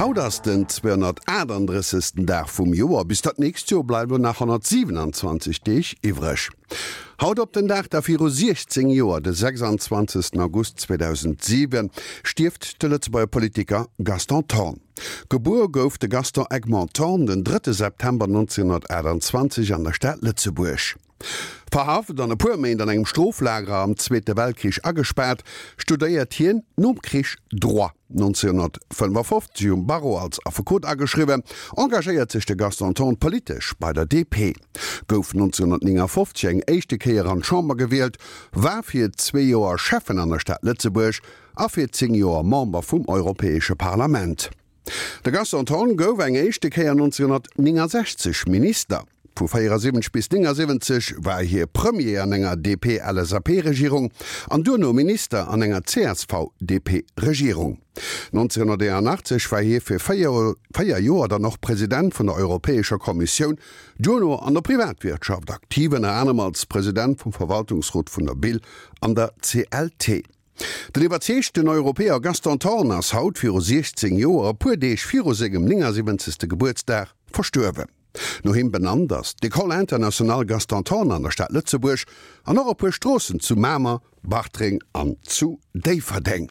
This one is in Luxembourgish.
Haut ass den 238. Dag vum Joer. Bis dat nächst Joer bleiwen nach 127 Deeg iwwreg. Haut op den Dag da viru 16 Joer, de 26. August 2007, stierft de Lëtzebuerger Politiker Gaston Thorn. Gebuer gouf de Gaston Egmont Thorn den 3 September 1928 an der Stad Lëtzebuerg. Verhaft an e puer Méint an engem Stroflager am Zweete Weltkrich agespaart, studéiert hien nom Krich Droit. 1955 um Barreau als Affekot ageschriwwen, engagéiert sech de Gaston Thorn politesch bei der DP, gouf 1959 eng éischte Kéier an d'Chamber gewielt, war fir zwee Joer Schäffen an der Stad Lëtzebuerg a fir 10 Joer Member vum Europäesche Parlament. De Gaston Thorn gouf eng éischte Kéier 1969 Minister. Vu 74 bis 79 war hie Premier an enger DP-LSAP-Regierung an duerno Minister an enger CSV-DP-Regierung. 1981 war hie fir 4 Joer dann och President vun der Europäescher Kommissioun, duerno an der Privatwirtschaft aktiv, ënner anerem als President vum Verwaltungsrot vun der Bill an der CLT. Den iwwerzeegten Europäer Gaston Thorn ass haut viru 16 Joer, e puer Deeg viru sengem 79. Gebuertsdag, verstuerwen. No him benannt ass d'École internationale Gaston Thorn an der Stad Lëtzebuerg an och e puer Stroossen zu Mamer, Bartreng an zu Déifferdeng.